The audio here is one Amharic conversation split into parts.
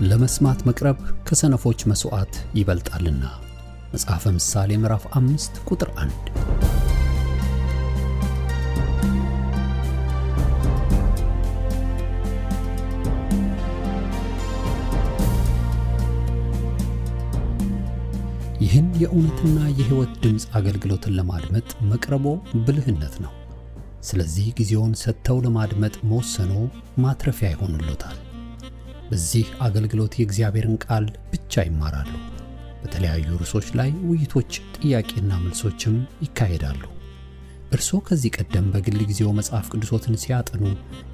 ለመስማት መቅረብ ከሰነፎች መስዋዕት ይበልጣልና። መጽሐፈ ምሳሌ ምዕራፍ 5 ቁጥር 1። ይህን የእውነትና የሕይወት ድምጽ አገልግሎትን ለማድመጥ መቅረቦ ብልህነት ነው። ስለዚህ ጊዜውን ሰጥተው ለማድመጥ መወሰኖ ማትረፊያ ይሆንልዎታል። በዚህ አገልግሎት የእግዚአብሔርን ቃል ብቻ ይማራሉ። በተለያዩ ርዕሶች ላይ ውይይቶች፣ ጥያቄና መልሶችም ይካሄዳሉ። እርስዎ ከዚህ ቀደም በግል ጊዜው መጽሐፍ ቅዱሶትን ሲያጠኑ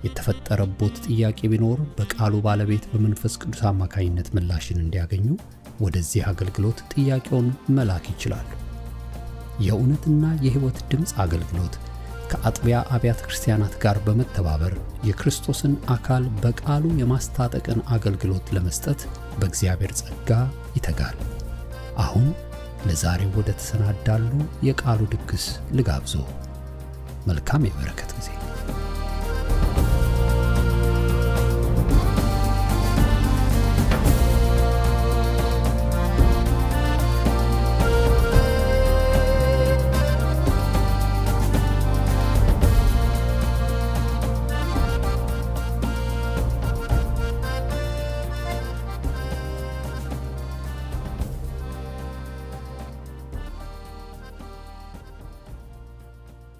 የተፈጠረቦት ጥያቄ ቢኖር በቃሉ ባለቤት በመንፈስ ቅዱስ አማካኝነት ምላሽን እንዲያገኙ ወደዚህ አገልግሎት ጥያቄውን መላክ ይችላሉ። የእውነትና የሕይወት ድምጽ አገልግሎት ከአጥቢያ አብያተ ክርስቲያናት ጋር በመተባበር የክርስቶስን አካል በቃሉ የማስታጠቅን አገልግሎት ለመስጠት በእግዚአብሔር ጸጋ ይተጋል። አሁን ለዛሬው ወደ ተሰናዳሉ የቃሉ ድግስ ልጋብዞ። መልካም የበረከት ጊዜ።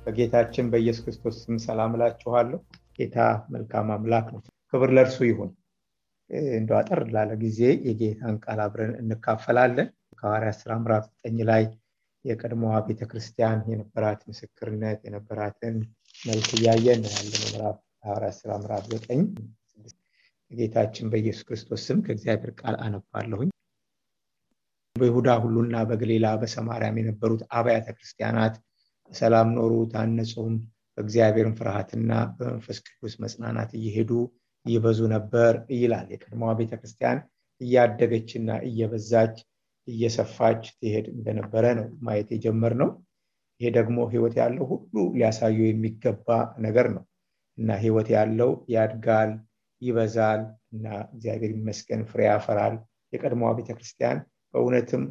በጌታችን በኢየሱስ ክርስቶስ ስም ሰላም እላችኋለሁ። ጌታ መልካም አምላክ ነው። ክብር ለእርሱ ይሁን። እንደው አጠር ላለ ጊዜ የጌታን ቃል አብረን እንካፈላለን። ከሐዋርያት ሥራ ምዕራፍ 9 ላይ የቀድሞዋ ቤተክርስቲያን የነበራት ምስክርነት የነበራትን መልክ እያየን ያለነው ምዕራፍ ሐዋርያት ሥራ ምዕራፍ 9 በጌታችን በኢየሱስ ክርስቶስ ስም ከእግዚአብሔር ቃል አነባለሁኝ። በይሁዳ ሁሉና በገሊላ በሰማርያም የነበሩት አብያተ ክርስቲያናት ሰላም ኖሩ፣ ታነጹም፣ በእግዚአብሔርም ፍርሃትና በመንፈስ ቅዱስ መጽናናት እየሄዱ ይበዙ ነበር ይላል። የቀድሞዋ ቤተክርስቲያን እያደገችና እየበዛች እየሰፋች ትሄድ እንደነበረ ነው ማየት የጀመርነው። ይሄ ደግሞ ሕይወት ያለው ሁሉ ሊያሳዩ የሚገባ ነገር ነው እና ሕይወት ያለው ያድጋል፣ ይበዛል እና እግዚአብሔር ይመስገን ፍሬ ያፈራል። የቀድሞዋ ቤተክርስቲያን በእውነትም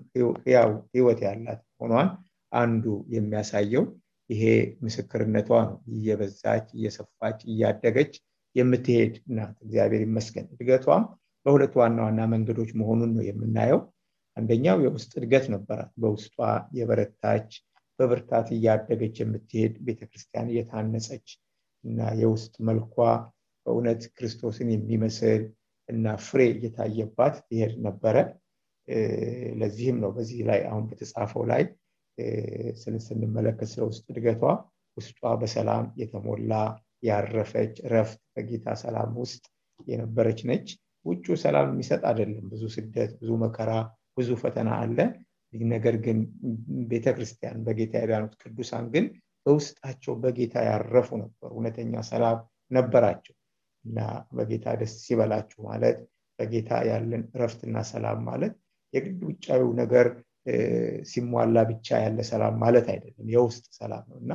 ሕይወት ያላት ሆኗን አንዱ የሚያሳየው ይሄ ምስክርነቷ ነው። እየበዛች እየሰፋች እያደገች የምትሄድ ናት። እግዚአብሔር ይመስገን። እድገቷም በሁለት ዋና ዋና መንገዶች መሆኑን ነው የምናየው። አንደኛው የውስጥ እድገት ነበራት። በውስጧ የበረታች በብርታት እያደገች የምትሄድ ቤተክርስቲያን እየታነጸች እና የውስጥ መልኳ በእውነት ክርስቶስን የሚመስል እና ፍሬ እየታየባት ትሄድ ነበረ። ለዚህም ነው በዚህ ላይ አሁን በተጻፈው ላይ ስንመለከት ስለውስጥ እድገቷ ውስጧ በሰላም የተሞላ ያረፈች ረፍት በጌታ ሰላም ውስጥ የነበረች ነች። ውጩ ሰላም የሚሰጥ አይደለም። ብዙ ስደት፣ ብዙ መከራ፣ ብዙ ፈተና አለ። ነገር ግን ቤተክርስቲያን በጌታ ያዳኑት ቅዱሳን ግን በውስጣቸው በጌታ ያረፉ ነበሩ። እውነተኛ ሰላም ነበራቸው እና በጌታ ደስ ይበላችሁ ማለት በጌታ ያለን ረፍትና ሰላም ማለት የግድ ውጫዊው ነገር ሲሟላ ብቻ ያለ ሰላም ማለት አይደለም። የውስጥ ሰላም ነውና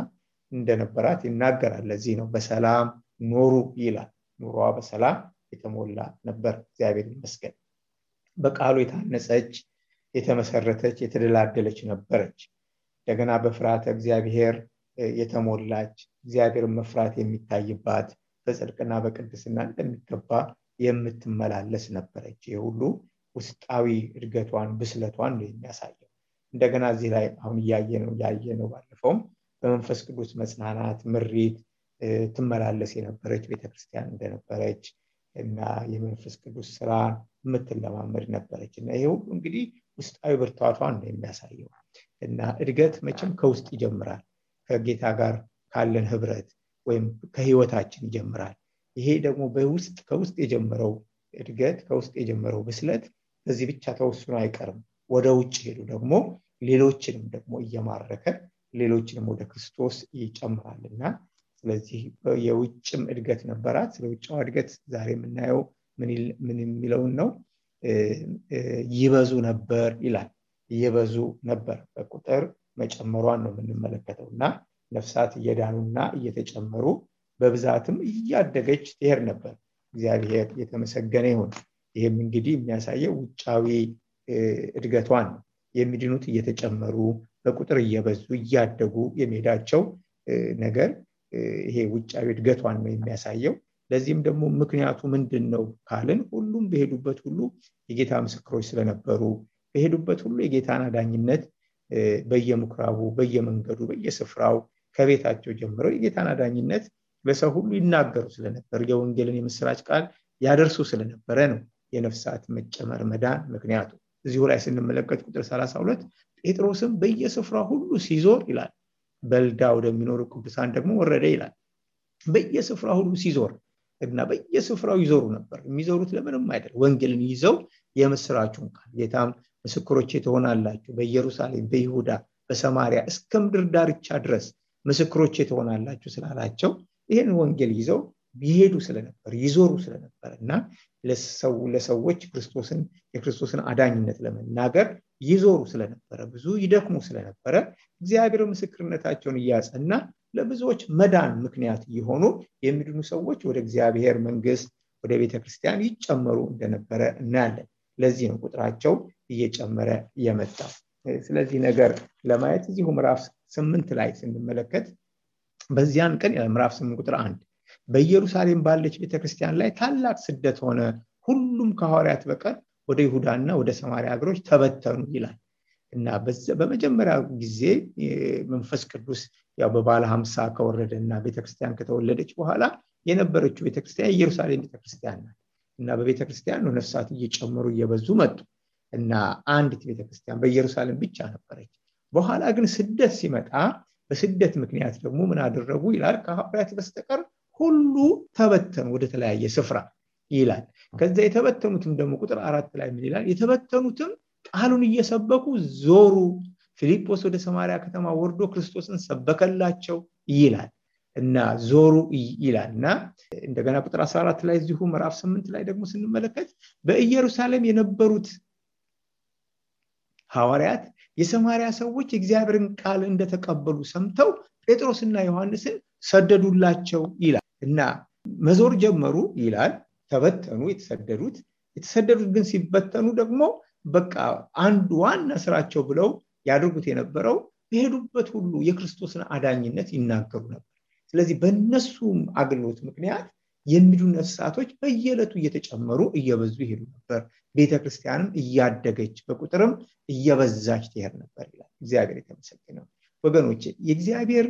እንደነበራት ይናገራል። ለዚህ ነው በሰላም ኖሩ ይላል። ኑሮዋ በሰላም የተሞላ ነበር። እግዚአብሔር ይመስገን። በቃሉ የታነጸች የተመሰረተች የተደላደለች ነበረች። እንደገና በፍርሃተ እግዚአብሔር የተሞላች እግዚአብሔርን መፍራት የሚታይባት በጽድቅና በቅድስና እንደሚገባ የምትመላለስ ነበረች። ይሄ ሁሉ ውስጣዊ እድገቷን ብስለቷን ነው የሚያሳየው። እንደገና እዚህ ላይ አሁን ያየነው ባለፈውም በመንፈስ ቅዱስ መጽናናት ምሪት ትመላለስ የነበረች ቤተክርስቲያን እንደነበረች እና የመንፈስ ቅዱስ ስራ የምትለማመድ ነበረች እና ይሄ ሁሉ እንግዲህ ውስጣዊ ብርታቷን ነው የሚያሳየው። እና እድገት መቼም ከውስጥ ይጀምራል። ከጌታ ጋር ካለን ህብረት ወይም ከህይወታችን ይጀምራል። ይሄ ደግሞ ከውስጥ የጀመረው እድገት ከውስጥ የጀመረው ብስለት በዚህ ብቻ ተወስኖ አይቀርም። ወደ ውጭ ሄዱ ደግሞ ሌሎችንም ደግሞ እየማረከ ሌሎችንም ወደ ክርስቶስ ይጨምራልና ስለዚህ የውጭም እድገት ነበራት። ስለውጫው እድገት ዛሬ የምናየው ምን የሚለውን ነው? ይበዙ ነበር ይላል። ይበዙ ነበር በቁጥር መጨመሯን ነው የምንመለከተውና ነፍሳት እየዳኑና እየተጨመሩ በብዛትም እያደገች ትሄድ ነበር። እግዚአብሔር የተመሰገነ ይሁን። ይሄም እንግዲህ የሚያሳየው ውጫዊ እድገቷን የሚድኑት እየተጨመሩ በቁጥር እየበዙ እያደጉ የሚሄዳቸው ነገር ይሄ ውጫዊ እድገቷን ነው የሚያሳየው። ለዚህም ደግሞ ምክንያቱ ምንድነው ካልን ሁሉም በሄዱበት ሁሉ የጌታ ምስክሮች ስለነበሩ በሄዱበት ሁሉ የጌታን አዳኝነት በየምኩራቡ በየመንገዱ በየስፍራው ከቤታቸው ጀምረው የጌታን አዳኝነት ለሰው ሁሉ ይናገሩ ስለነበር የወንጌልን የምስራች ቃል ያደርሱ ስለነበረ ነው የነፍሳት መጨመር መዳን ምክንያቱ። እዚሁ ላይ ስንመለከት ቁጥር 32 ጴጥሮስም በየስፍራው ሁሉ ሲዞር ይላል በልዳ ወደሚኖሩ ቅዱሳን ደግሞ ወረደ ይላል። በየስፍራው ሁሉ ሲዞር እና በየስፍራው ይዞሩ ነበር። የሚዞሩት ለምንም አይደል ወንጌልን ይዘው የምስራቹን ቃል ጌታም ምስክሮቼ ትሆናላችሁ በኢየሩሳሌም በይሁዳ በሰማሪያ እስከ ምድር ዳርቻ ድረስ ምስክሮቼ ትሆናላችሁ ስላላቸው ይሄን ወንጌል ይዘው ይሄዱ ስለነበር ይዞሩ ስለነበርና ለሰዎች የክርስቶስን አዳኝነት ለመናገር ይዞሩ ስለነበረ ብዙ ይደክሙ ስለነበረ እግዚአብሔር ምስክርነታቸውን ያጸና ለብዙዎች መዳን ምክንያት የሆኑ የሚድኑ ሰዎች ወደ እግዚአብሔር መንግስት ወደ ቤተክርስቲያን ይጨመሩ እንደነበረ እናያለን። ለዚህ ነው ቁጥራቸው እየጨመረ የመጣው። ስለዚህ ነገር ለማየት እዚሁ ምዕራፍ 8 ላይ ስንመለከት በዚያን ቀን ምዕራፍ 8 ቁጥር 1 በኢየሩሳሌም ባለች ቤተክርስቲያን ላይ ታላቅ ስደት ሆነ፣ ሁሉም ከሐዋርያት በቀር ወደ ይሁዳና ወደ ሰማርያ ሀገሮች ተበተኑ ይላል እና በመጀመሪያ ጊዜ መንፈስ ቅዱስ ያው በባለ 50 ከወረደና ቤተክርስቲያን ከተወለደች በኋላ የነበረችው ቤተክርስቲያን ኢየሩሳሌም ቤተክርስቲያን ናት እና በቤተክርስቲያን ነው ነፍሳት እየጨመሩ እየበዙ መጡ እና አንዲት ቤተክርስቲያን በኢየሩሳሌም ብቻ ነበረች። በኋላ ግን ስደት ሲመጣ በስደት ምክንያት ደግሞ ምን አደረጉ ይላል ከሐዋርያት በስተቀር ሁሉ ተበተኑ ወደ ተለያየ ስፍራ ይላል። ከዛ የተበተኑትም ደግሞ ቁጥር 4 ላይ ምን ይላል? የተበተኑትም ቃሉን እየሰበኩ ዞሩ፣ ፊልጶስ ወደ ሰማርያ ከተማ ወርዶ ክርስቶስን ሰበከላቸው ይላል እና ዞሩ ይላልና እንደገና ቁጥር 14 ላይ እዚሁ ምዕራፍ 8 ላይ ደግሞ ስንመለከት በኢየሩሳሌም የነበሩት ሐዋርያት የሰማርያ ሰዎች የእግዚአብሔርን ቃል እንደተቀበሉ ሰምተው ጴጥሮስና ዮሐንስን ሰደዱላቸው ይላል እና መዞር ጀመሩ ይላል። ተበተኑ የተሰደዱት ግን ሲበተኑ ደግሞ በቃ አንድ ዋና ስራቸው ብለው ያደርጉት የነበረው በሄዱበት ሁሉ የክርስቶስን አዳኝነት ይናገሩ ነበር። ስለዚህ በእነሱም አገልግሎት ምክንያት የሚድኑ ነፍሳቶች በየዕለቱ እየተጨመሩ እየበዙ ይሄዱ ነበር። ቤተክርስቲያንም እያደገች በቁጥርም እየበዛች ትሄድ ነበር ይላል። እግዚአብሔር የተመሰገነ ይሁን። ወገኖቼ የእግዚአብሔር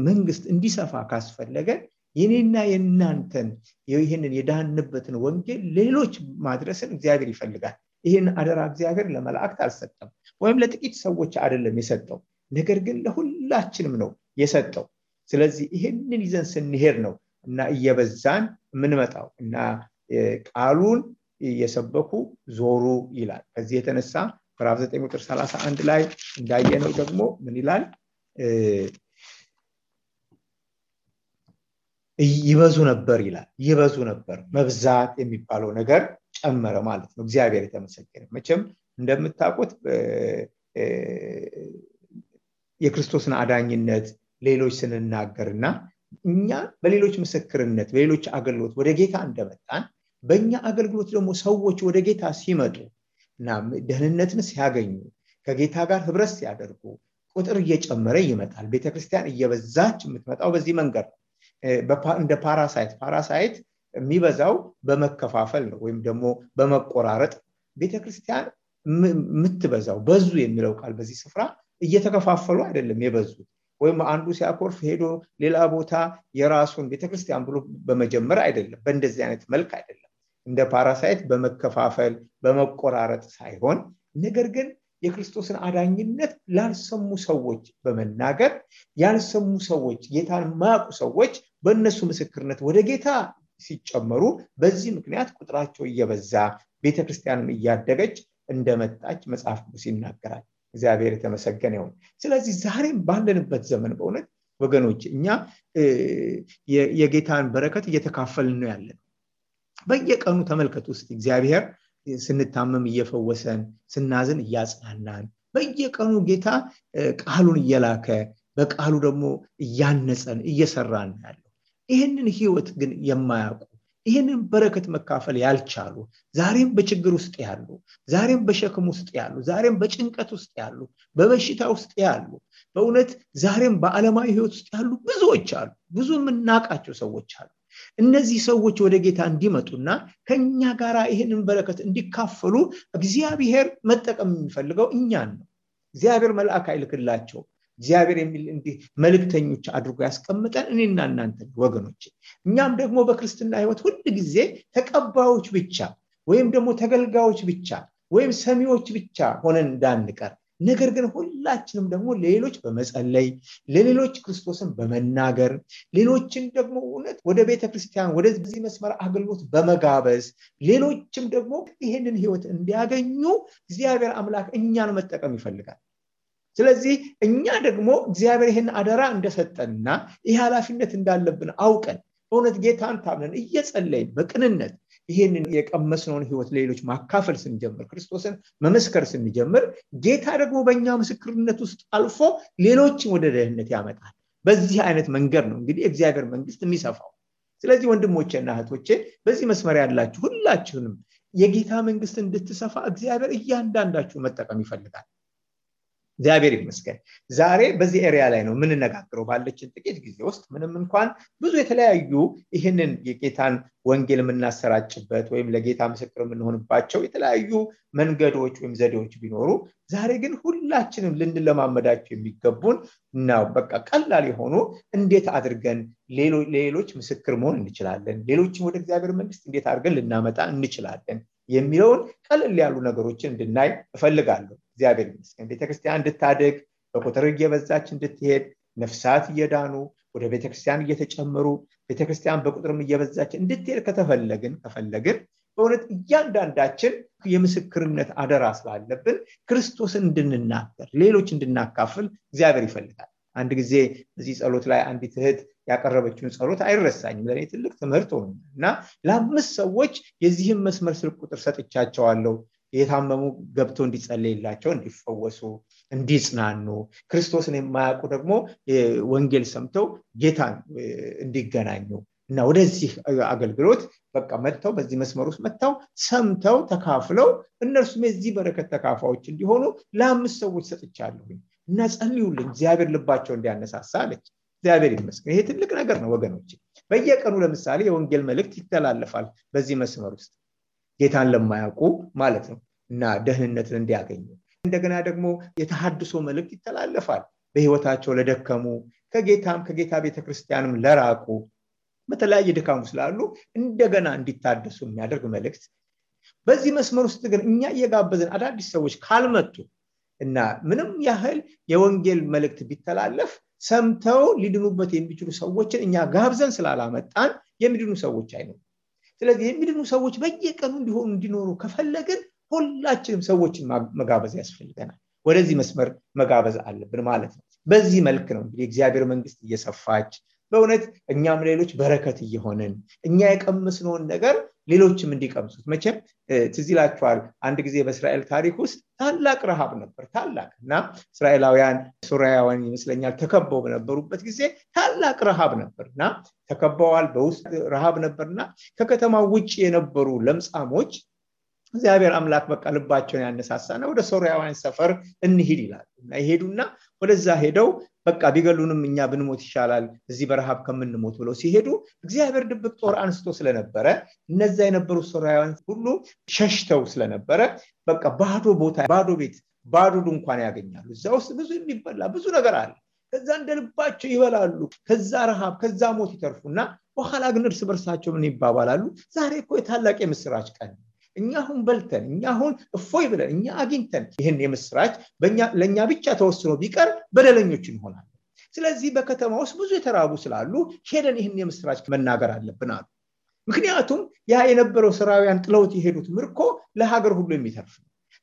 መንግስት እንዲሰፋ ካስፈለገ የኔና የናንተን ይሄንን የዳንበትን ወንጌል ሌሎች ማድረስን እግዚአብሔር ይፈልጋል። ይሄን አደራ እግዚአብሔር ለመላእክት አልሰጠም ወይም ለጥቂት ሰዎች አይደለም የሰጠው፣ ነገር ግን ለሁላችንም ነው የሰጠው። ስለዚህ ይሄንን ይዘን ስንሄድ ነው እና እየበዛን የምንመጣው እና ቃሉን የሰበኩ ዞሩ ይላል። ከዚህ የተነሳ ምዕራፍ 9 ቁጥር 31 ላይ እንዳየነው ደግሞ ምን ይላል? ይበዙ ነበር ይላል። ይበዙ ነበር፣ መብዛት የሚባለው ነገር ጨመረ ማለት ነው። እግዚአብሔር የተመሰገነ። መቼም እንደምታውቁት የክርስቶስን አዳኝነት ሌሎች ስንናገርና እኛ በሌሎች ምስክርነት በሌሎች አገልግሎት ወደ ጌታ እንደመጣን በእኛ አገልግሎት ደግሞ ሰዎች ወደ ጌታ ሲመጡ እና ደህንነትን ሲያገኙ ከጌታ ጋር ህብረት ሲያደርጉ ቁጥር እየጨመረ ይመጣል። ቤተክርስቲያን እየበዛች የምትመጣው በዚህ መንገድ ነው። እንደ ፓራሳይት የሚበዛው በመከፋፈል ነው ወይም ደግሞ በመቆራረጥ። ቤተክርስቲያን የምትበዛው በዙ የሚለው ቃል በዚህ ስፍራ እየተከፋፈሉ አይደለም የበዙት፣ ወይም አንዱ ሲያኮርፍ ሄዶ ሌላ ቦታ የራሱን ቤተክርስቲያን ብሎ በመጀመር አይደለም፣ በእንደዚህ አይነት መልክ አይደለም። እንደ ፓራሳይት በመከፋፈል በመቆራረጥ ሳይሆን ነገር ግን የክርስቶስን አዳኝነት ላልሰሙ ሰዎች በመናገር ያልሰሙ ሰዎች ጌታን ማያውቁ ሰዎች በእነሱ ምስክርነት ወደ ጌታ ሲጨመሩ በዚህ ምክንያት ቁጥራቸው እየበዛ ቤተክርስቲያንም እያደገች እንደመጣች መጽሐፍ ቅዱስ ይናገራል። እግዚአብሔር የተመሰገነ ይሁን። ስለዚህ ዛሬም ባለንበት ዘመን በእውነት ወገኖች እኛ የጌታን በረከት እየተካፈልን ነው ያለነው። በየቀኑ ተመልከቱ እስቲ እግዚአብሔር ስንታመም እየፈወሰን ስናዝን እያጽናናን በየቀኑ ጌታ ቃሉን እየላከ በቃሉ ደግሞ እያነጸን እየሰራን ያለው። ይሄንን ህይወት ግን የማያውቁ ይህንን በረከት መካፈል ያልቻሉ ዛሬም በችግር ውስጥ ያሉ ዛሬም በሸክም ውስጥ ያሉ ዛሬም በጭንቀት ውስጥ ያሉ በበሽታ ውስጥ ያሉ በእውነት ዛሬም በዓለማዊ ህይወት ውስጥ ያሉ ብዙዎች አሉ ብዙ የምናውቃቸው ሰዎች አሉ እነዚህ ሰዎች ወደ ጌታ እንዲመጡና ከኛ ጋራ ይህንን በረከት እንዲካፈሉ እግዚአብሔር መጠቀም የሚፈልገው እኛን ነው እግዚአብሔር መልአክ አይልክላቸው እግዚአብሔር የሚል እንዲህ መልእክተኞች አድርጎ ያስቀምጠን እኔና እናንተ ወገኖች እኛም ደግሞ በክርስትና ህይወት ሁሉ ጊዜ ተቀባዮች ብቻ ወይም ደግሞ ተገልጋዮች ብቻ ወይም ሰሚዎች ብቻ ሆነን እንዳንቀር ነገር ግን ሁላችንም ደግሞ ሌሎች በመጸለይ ለሌሎች ክርስቶስን በመናገር ሌሎችን ደግሞ እውነት ወደ ቤተክርስቲያን ወደዚህ መስመር አገልግሎት በመጋበዝ ሌሎችም ደግሞ ይሄንን ህይወት እንዲያገኙ እግዚአብሔር አምላክ እኛን መጠቀም ይፈልጋል ስለዚህ እኛ ደግሞ እግዚአብሔር ይሄን አደራ እንደሰጠንና ይሄ ኃላፊነት እንዳለብን አውቀን በእውነት ጌታን ታምነን እየጸለይን በቅንነት ይሄንን የቀመስነውን ህይወት ለሌሎች ማካፈል ስንጀምር ክርስቶስን መመስከር ስንጀምር ጌታ ደግሞ በእኛ ምስክርነት ውስጥ አልፎ ሌሎችን ወደ ደህንነት ያመጣል በዚህ አይነት መንገድ ነው እንግዲህ እግዚአብሔር መንግስት የሚሰፋው ስለዚህ ወንድሞቼና እህቶቼ በዚህ መስመር ያላችሁ ሁላችሁንም የጌታ መንግስት እንድትሰፋ እግዚአብሔር እያንዳንዳችሁ መጠቀም ይፈልጋል እግዚአብሔር ይመስገን ዛሬ በዚህ ኤሪያ ላይ ነው ምን ነጋግረው ባለችን ጥቂት ጊዜ ውስጥ ምንም እንኳን ብዙ የተለያዩ ይሄንን የጌታን ወንጌል የምናሰራጭበት ወይም ለጌታ ምስክር የምንሆንባቸው የተለያዩ መንገዶች ወይም ዘዴዎች ቢኖሩ ዛሬ ግን ሁላችንም ልንለማመዳቸው የሚገቡን ነው በቃ ቀላል የሆኑ እንዴት አድርገን ሌሎች ምስክር መሆን እንችላለን ሌሎችን ወደ እግዚአብሔር መንግስት እንዴት አድርገን ልናመጣ እንችላለን የሚለውን ቀለል ያሉ ነገሮችን እንድናይ እፈልጋለሁ እግዚአብሔር ይመስገን ቤተክርስቲያን እንድታደግ በቁጥር እየበዛች እንድትሄድ ነፍሳት እየዳኑ ወደ ቤተክርስቲያን እየተጨመሩ ቤተክርስቲያን በቁጥርም እየበዛች እንድትሄድ ከፈለግን በእውነት እያንዳንዳችን የምስክርነት አደራ ስላለብን ክርስቶስን እንድንናገር ሌሎች እንድናካፍል እግዚአብሔር ይፈልጋል አንድ ጊዜ በዚህ ጸሎት ላይ አንዲት እህት ያቀረበችውን ጸሎት አይረሳኝም ለኔ ትልቅ ትምህርት ሆነና ለአምስት ሰዎች የዚህን መስመር ስልክ ቁጥር ሰጥቻቸዋለሁ የታመሙ ገብቶ እንዲጸልይላቸው እንዲፈወሱ እንዲጽናኑ ክርስቶስን የማያውቁ ደግሞ ወንጌል ሰምተው ጌታን እንዲገናኙ እና ወደዚህ አገልግሎት በቃ መጥተው በዚህ መስመር ውስጥ መጥተው ሰምተው ተካፍለው እነርሱም የዚህ በረከት ተካፋዮች እንዲሆኑ ለአምስት ሰዎች ሰጥቻለሁ እና ጸልዩልኝ እግዚአብሔር ልባቸው እንዲያነሳሳ አለች እግዚአብሔር ይመስገን ይሄ ትልቅ ነገር ነው ወገኖች በየቀኑ ለምሳሌ የወንጌል መልእክት ይተላለፋል በዚህ መስመር ውስጥ ጌታን ለማያውቁ ማለት ነው እና ደህንነትን እንዲያገኙ እንደገና ደግሞ የተሐድሶ መልእክት ይተላለፋል በህይወታቸው ለደከሙ ከጌታ ቤተክርስቲያንም ለራቁ በተለያየ ድካም ስላሉ እንደገና እንዲታደሱ የሚያደርግ መልእክት በዚህ መስመር ውስጥ ግን እኛ እየጋበዝን አዳዲስ ሰዎች ካልመጡ እና ምንም ያህል የወንጌል መልእክት ቢተላለፍ ሰምተው ሊድኑበት የሚችሉ ሰዎችን እኛ ጋብዘን ስላላመጣን የሚድኑ ሰዎች አይኖሩም ስለዚህ የሚድኑ ሰዎች በየቀኑ እንዲኖሩ ከፈለግን ሁላችንም ሰዎችን መጋበዝ ያስፈልገናል ወደዚህ መስመር መጋበዝ አለብን ማለት ነው በዚህ መልክ ነው እንግዲህ እግዚአብሔር መንግስት እየሰፋች በእውነት እኛም ሌሎች በረከት እየሆነን እኛ የቀመስነውን ነገር ሌሎችም እንዲቀምሱት መቼም ትዝ ይላችኋል አንድ ጊዜ በእስራኤል ታሪክ ውስጥ ታላቅ ረሃብ ነበር ታላቅና እስራኤላውያን ሶርያውያን ይመስለኛል ተከበው በነበሩበት ጊዜ ታላቅ ረሃብ ነበርና ተከበዋል በውስጥ ረሃብ ነበርና ከከተማው ውጪ የነበሩ ለምጻሞች እግዚአብሔር አምላክ በቃ ልባቸውን ያነሳሳና ወደ ሶርያውያን ሰፈር እንሂድ ይላል እና ይሄዱና ወደዛ ሄደው በቃ ቢገሉንም እኛ ብንሞት ይሻላል እዚህ በረሃብ ከምንሞት ብለው ሲሄዱ እግዚአብሔር ድብቅ ጦር አንስቶ ስለነበረ እነዛ የነበሩ ሶርያውያን ሁሉ ሸሽተው ስለነበረ በቃ ባዶ ቦታ ባዶ ቤት ባዶ ድንኳን ያገኛሉ እዛ ውስጥ ብዙ የሚበላ ብዙ ነገር አለ ከዛ እንደልባቸው ይበላሉ ከዛ ረሃብ ከዛ ሞት ይተርፉና በኋላ ግን እርስ በርሳቸው ምን ይባባላሉ ዛሬ እኮ የታላቅ የምስራች ቀን እኛ አሁን በልተን እኛ አሁን እፎይ ብለን እኛ አግኝተን ይሄን የምስራች ለኛ ብቻ ተወስኖ ቢቀር በደለኞች እንሆናለን ስለዚህ በከተማ ውስጥ ብዙ የተራቡ ስላሉ ሄደን ይሄን የምስራች መናገር አለብን አሉ ምክንያቱም ያ የነበረው ሶርያውያን ጥለውት የሄዱት ምርኮ ለሀገር ሁሉ የሚተርፍ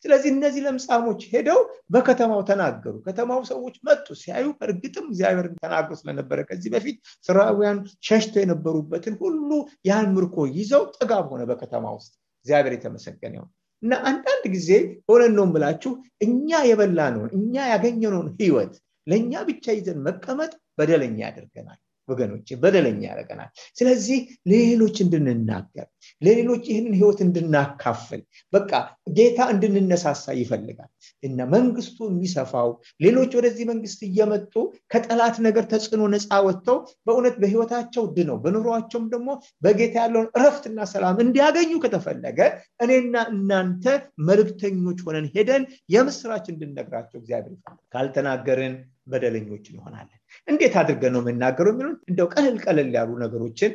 ስለዚህ እነዚህ ለምጻሞች ሄደው በከተማው ተናገሩ ከተማው ሰዎች መጡ ሲያዩ እርግጥም እግዚአብሔር ተናግሮ ስለነበረ ከዚህ በፊት ሶርያውያን ሸሽተው የነበሩበትን ሁሉ ያን ምርኮ ይዘው ጥጋብ ሆነ በከተማው ውስጥ እግዚአብሔር የተመሰገነ ይሁን እና አንዳንድ ጊዜ ሆነን ነው የምላችሁ እኛ የበላነውን እኛ ያገኘነውን ህይወት ለኛ ብቻ ይዘን መቀመጥ በደለኛ ያደርገናል ወገኖች በደለኛ ያደርገናል። ስለዚህ ለሌሎች እንድንናገር ለሌሎች ይህንን ህይወት እንድናካፍል በቃ ጌታ እንድንነሳሳ ይፈልጋል እና መንግስቱ የሚሰፋው ሌሎች ወደዚህ መንግስት እየመጡ ከጠላት ነገር ተጽዕኖ ነፃ ወጥተው በእውነት በህይወታቸው ድነው በኑሯቸውም ደግሞ በጌታ ያለውን እረፍትና ሰላም እንዲያገኙ ከተፈለገ እኔና እናንተ መልእክተኞች ሆነን ሄደን የምስራች እንድንነግራቸው እግዚአብሔር ይፈልጋል። ካልተናገርን በደለኞች እንሆናለን። እንዴት አድርገን ነው የምናገረው የሚሉን እንደው ቀለል ያሉ ነገሮችን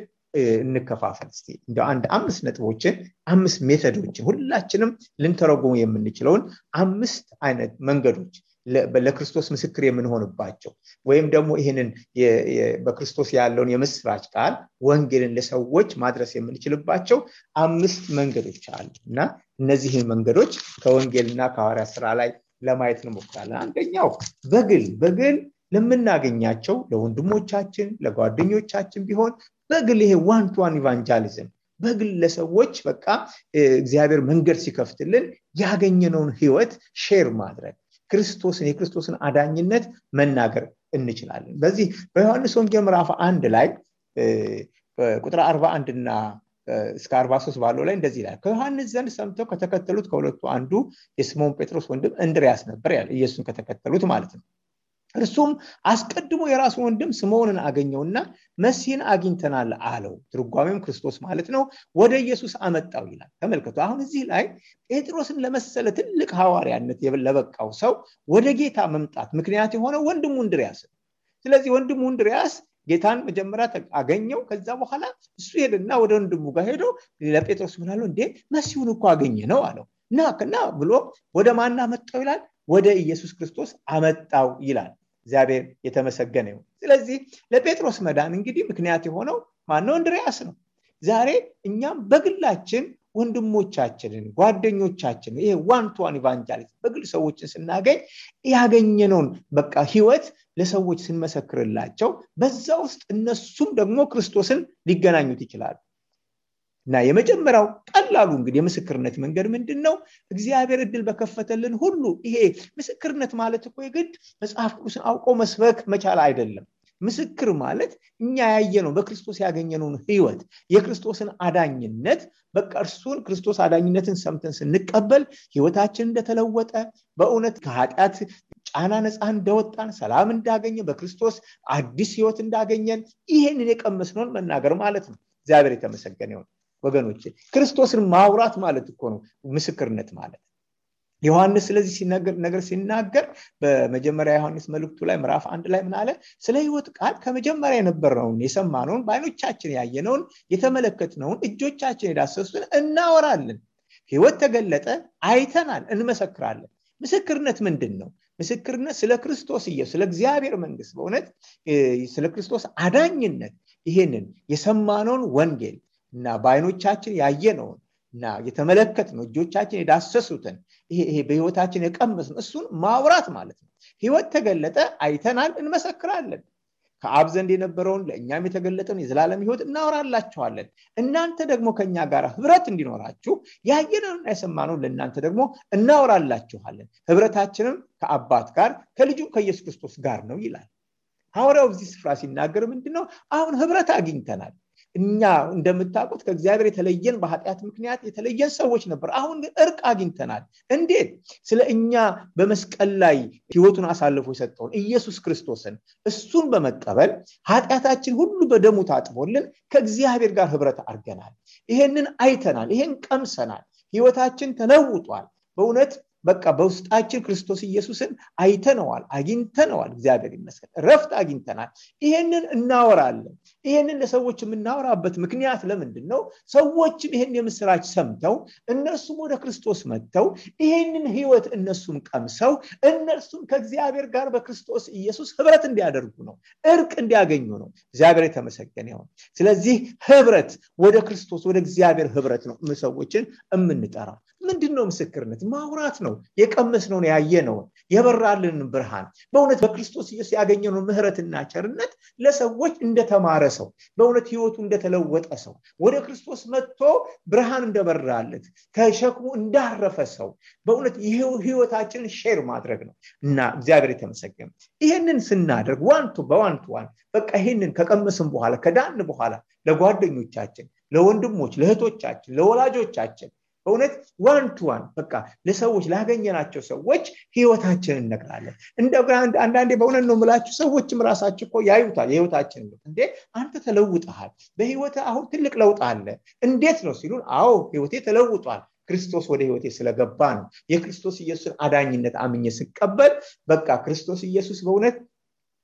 እንከፋፈል እስቲ። እንደው አንድ 5 ነጥቦችን 5 ሜተዶችን ሁላችንም ልንተረጉሙ የምንችለውን 5 አይነት መንገዶች ለክርስቶስ ምስክር የምንሆንባቸው ወይም ደግሞ ይሄንን በክርስቶስ ያለውን የምስራች ቃል ወንጌልን ለሰዎች ማድረስ የምንችልባቸው 5 መንገዶች አሉ እና እነዚህን መንገዶች ከወንጌልና ከሐዋርያት ሥራ ላይ ለማየት እንሞክራለን። አንደኛው በግል ለምናገኛቸው ለወንድሞቻችን ለጓደኞቻችን ቢሆን በግል ይሄ ዋን ቱ ዋን ኢቫንጀሊዝም በግል ለሰዎች በቃ እግዚአብሔር መንገድ ሲከፍትልን ያገኘነውን ህይወት ሼር ማድረግ የክርስቶስን አዳኝነት መናገር እንችላለን። በዚህ በዮሐንስ ወንጌል ምዕራፍ 1 ላይ ቁጥር 41 እና እስከ 43 ባለው ላይ እንደዚህ ይላል። ከዮሐንስ ዘንድ ሰምተው ከተከተሉት ከሁለቱ አንዱ የስምዖን ጴጥሮስ ወንድም እንድርያስ ነበር ያለ ኢየሱስን ከተከተሉት ማለት ነው። እርሱም አስቀድሞ የራሱ ወንድም ስምዖንን አገኘውና መሲህን አግኝተናል አለው። ትርጓሜም ክርስቶስ ማለት ነው። ወደ ኢየሱስ አመጣው ይላል። ተመልከቱ። አሁን እዚህ ላይ ጴጥሮስን ለመሰለ ትልቅ ሐዋርያነት ለበቃው ሰው ወደ ጌታ መምጣት ምክንያት የሆነው ወንድሙ እንድርያስ። ስለዚህ ወንድሙ እንድርያስ ጌታን መጀመሪያ አገኘው። ከዛ በኋላ እሱ ሄደና ወደ ወንድሙ ጋር ሄዶ ለጴጥሮስ ምን አለው? እንዴ መሲሁን እኮ አገኘ ነው አለው። እና ብሎ ወደ ማን አመጣው ይላል? ወደ ኢየሱስ ክርስቶስ አመጣው ይላል። እግዚአብሔር የተመሰገነ ይሁን። ስለዚህ ለጴጥሮስ መዳን እንግዲህ ምክንያት የሆነው ማን ነው? እንድርያስ ነው። ዛሬ እኛም በግላችን ወንድሞቻችንን ጓደኞቻችንን ይሄ ዋን ቱ ዋን ኢቫንጀሊዝም በግል ሰዎችን ስናገኝ ያገኘነውን በቃ ህይወት ለሰዎች ስንመሰክርላቸው በዛ ውስጥ እነሱም ደግሞ ክርስቶስን ሊገናኙት ይችላሉ። እና የመጀመሪያው ቀላሉ እንግዲህ የምስክርነት መንገድ ምንድነው? እግዚአብሔር እድል በከፈተልን ሁሉ ይሄ ምስክርነት ማለት እኮ የግድ መጽሐፍ ቅዱስን አውቆ መስበክ መቻል አይደለም። ምስክር ማለት እኛ ያየነው በክርስቶስ ያገኘነውን ህይወት የክርስቶስን አዳኝነት በቃ እርሱን ክርስቶስ አዳኝነትን ሰምተን ስንቀበል ህይወታችን እንደተለወጠ በእውነት ከኃጢአት ጫና ነፃ እንደወጣን ሰላም እንዳገኘ በክርስቶስ አዲስ ህይወት እንዳገኘን ይሄንን የቀመስነውን መናገር ማለት ነው። እግዚአብሔር የተመሰገነ ይሁን። ወገኖቼ ክርስቶስን ማውራት ማለት እኮ ነው ምስክርነት ማለት። ዮሐንስ ስለዚህ ሲናገር በመጀመሪያ ዮሐንስ መልእክቱ ላይ ምዕራፍ 1 ላይ ምን አለ? ስለ ህይወት ቃል ከመጀመሪያ የነበረውን የሰማነውን በዓይኖቻችን ያየነውን የተመለከትነውን እጆቻችን የዳሰሱትን እናወራለን። ህይወት ተገለጠ፣ አይተናል፣ እንመሰክራለን። ምስክርነት ምንድነው? ምስክርነት ስለ ክርስቶስ ኢየሱስ ስለ እግዚአብሔር መንግስት በእውነት ስለ ክርስቶስ አዳኝነት ይሄንን የሰማነውን ወንጌል እና በዓይኖቻችን ያየነውን እና የተመለከትነው እጆቻችን የዳሰሱትን ይሄ በህይወታችን የቀመስነው እሱን ማውራት ማለት ነው። ህይወት ተገለጠ፣ አይተናል፣ እንመሰክራለን። ከአብ ዘንድ የነበረውን ለእኛም የተገለጠውን የዘላለም ህይወት እናወራላችኋለን። እናንተ ደግሞ ከኛ ጋር ህብረት እንዲኖራችሁ ያየነውና የሰማነውን ለእናንተ ደግሞ እናወራላችኋለን። ህብረታችንም ከአባት ጋር ከልጁም ከኢየሱስ ክርስቶስ ጋር ነው ይላል ሐዋርያው። በዚህ ስፍራ ሲናገር ምንድነው? አሁን ህብረት አግኝተናል። እኛ እንደምታውቁት ከእግዚአብሔር የተለየን በኃጢአት ምክንያት የተለየን ሰዎች ነበር። አሁን ግን እርቅ አግኝተናል። እንዴት? ስለ እኛ በመስቀል ላይ ህይወቱን አሳልፎ የሰጠውን ኢየሱስ ክርስቶስን እሱን በመቀበል ኃጢአታችን ሁሉ በደሙ ታጥቦልን ከእግዚአብሔር ጋር ህብረት አድርገናል። ይሄንን አይተናል፣ ይሄን ቀምሰናል። ህይወታችን ተለውጧል። በእውነት በቃ በውስጣችን ክርስቶስ ኢየሱስን አይተነዋል፣ አግኝተነዋል። እግዚአብሔር ይመስገን ረፍት አግኝተናል። ይሄንን እናወራለን። ይሄንን ለሰዎች የምናወራበት ምክንያት ለምንድን ነው? ሰዎችም ይሄን የምስራች ሰምተው እነርሱም ወደ ክርስቶስ መጥተው ይሄንን ህይወት እነሱም ቀምሰው እነርሱም ከእግዚአብሔር ጋር በክርስቶስ ኢየሱስ ህብረት እንዲያደርጉ ነው፣ እርቅ እንዲያገኙ ነው። እግዚአብሔር የተመሰገነ ይሁን። ስለዚህ ህብረት ወደ ክርስቶስ ወደ እግዚአብሔር ህብረት ነው ሰዎችን የምንጠራው። ምንድነው ምስክርነት? ማውራት ነው። የቀመስነውን ያየነውን የበራልን ብርሃን በእውነት በክርስቶስ ኢየሱስ ያገኘነውን ምህረትና ቸርነት ለሰዎች እንደተማረ ሰው በእውነት ህይወቱ እንደተለወጠ ሰው ወደ ክርስቶስ መጥቶ ብርሃን እንደበራለት ከሸክሙ እንዳረፈ ሰው በእውነት ህይወታችንን ሼር ማድረግ ነው እና እግዚአብሔር የተመሰገነ ይሄንን ስናደርግ ዋን በቃ ይሄንን ከቀመስን በኋላ ከዳን በኋላ ለጓደኞቻችን ለወንድሞች ለእህቶቻችን ለወላጆቻችን በእውነት ዋን በቃ ለሰዎች ላገኘናቸው ሰዎች ህይወታችንን እንነግራለን እንደገና አንዳንዴ በእውነት ነው የምላችሁ ሰዎችም ራሳቸው እኮ ያዩታል የህይወታችንን እንዴ አንተ ተለውጠሃል በህይወት አሁን ትልቅ ለውጥ አለ እንዴት ነው ሲሉን አዎ ህይወቴ ተለውጧል ክርስቶስ ወደ ህይወቴ ስለገባ ነው የክርስቶስ ኢየሱስን አዳኝነት አምኜ ስቀበል በቃ ክርስቶስ ኢየሱስ በእውነት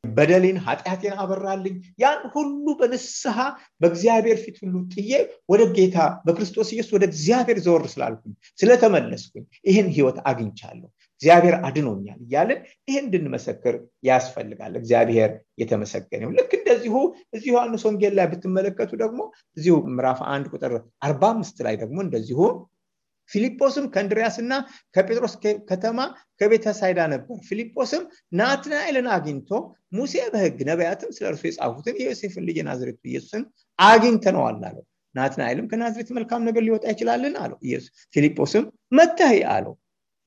በደሌን ኃጢአቴን አበራልኝ ያን ሁሉ በንስሐ በእግዚአብሔር ፊት ሁሉ ጥዬ ወደ ጌታ በክርስቶስ ኢየሱስ ወደ እግዚአብሔር ዘወር ስላልኩኝ ስለተመለስኩኝ ይሄን ህይወት አግኝቻለሁ እግዚአብሔር አድኖኛል ይያለን ይሄን እንድንመሰክር ያስፈልጋል እግዚአብሔር የተመሰገነው ልክ እንደዚሁ እዚሁ ዮሐንስ ወንጌል ላይ ብትመለከቱ ደግሞ እዚሁ ምዕራፍ 1 ቁጥር 45 ላይ ደግሞ እንደዚሁ ፊልጶስም ከእንድርያስና ከጴጥሮስ ከተማ ከቤተሳይዳ ነበር ፊልጶስም ናትናኤልን አግኝቶ ሙሴ በሕግ ነቢያትም ስለርሱ የጻፉትን የዮሴፍን ልጅ ናዝሬቱ ኢየሱስን አግኝተነዋል አለው ናትናኤልም ከናዝሬት መልካም ነገር ሊወጣ ይችላልን አለው ኢየሱስ ፊልጶስም መጥተህ አለው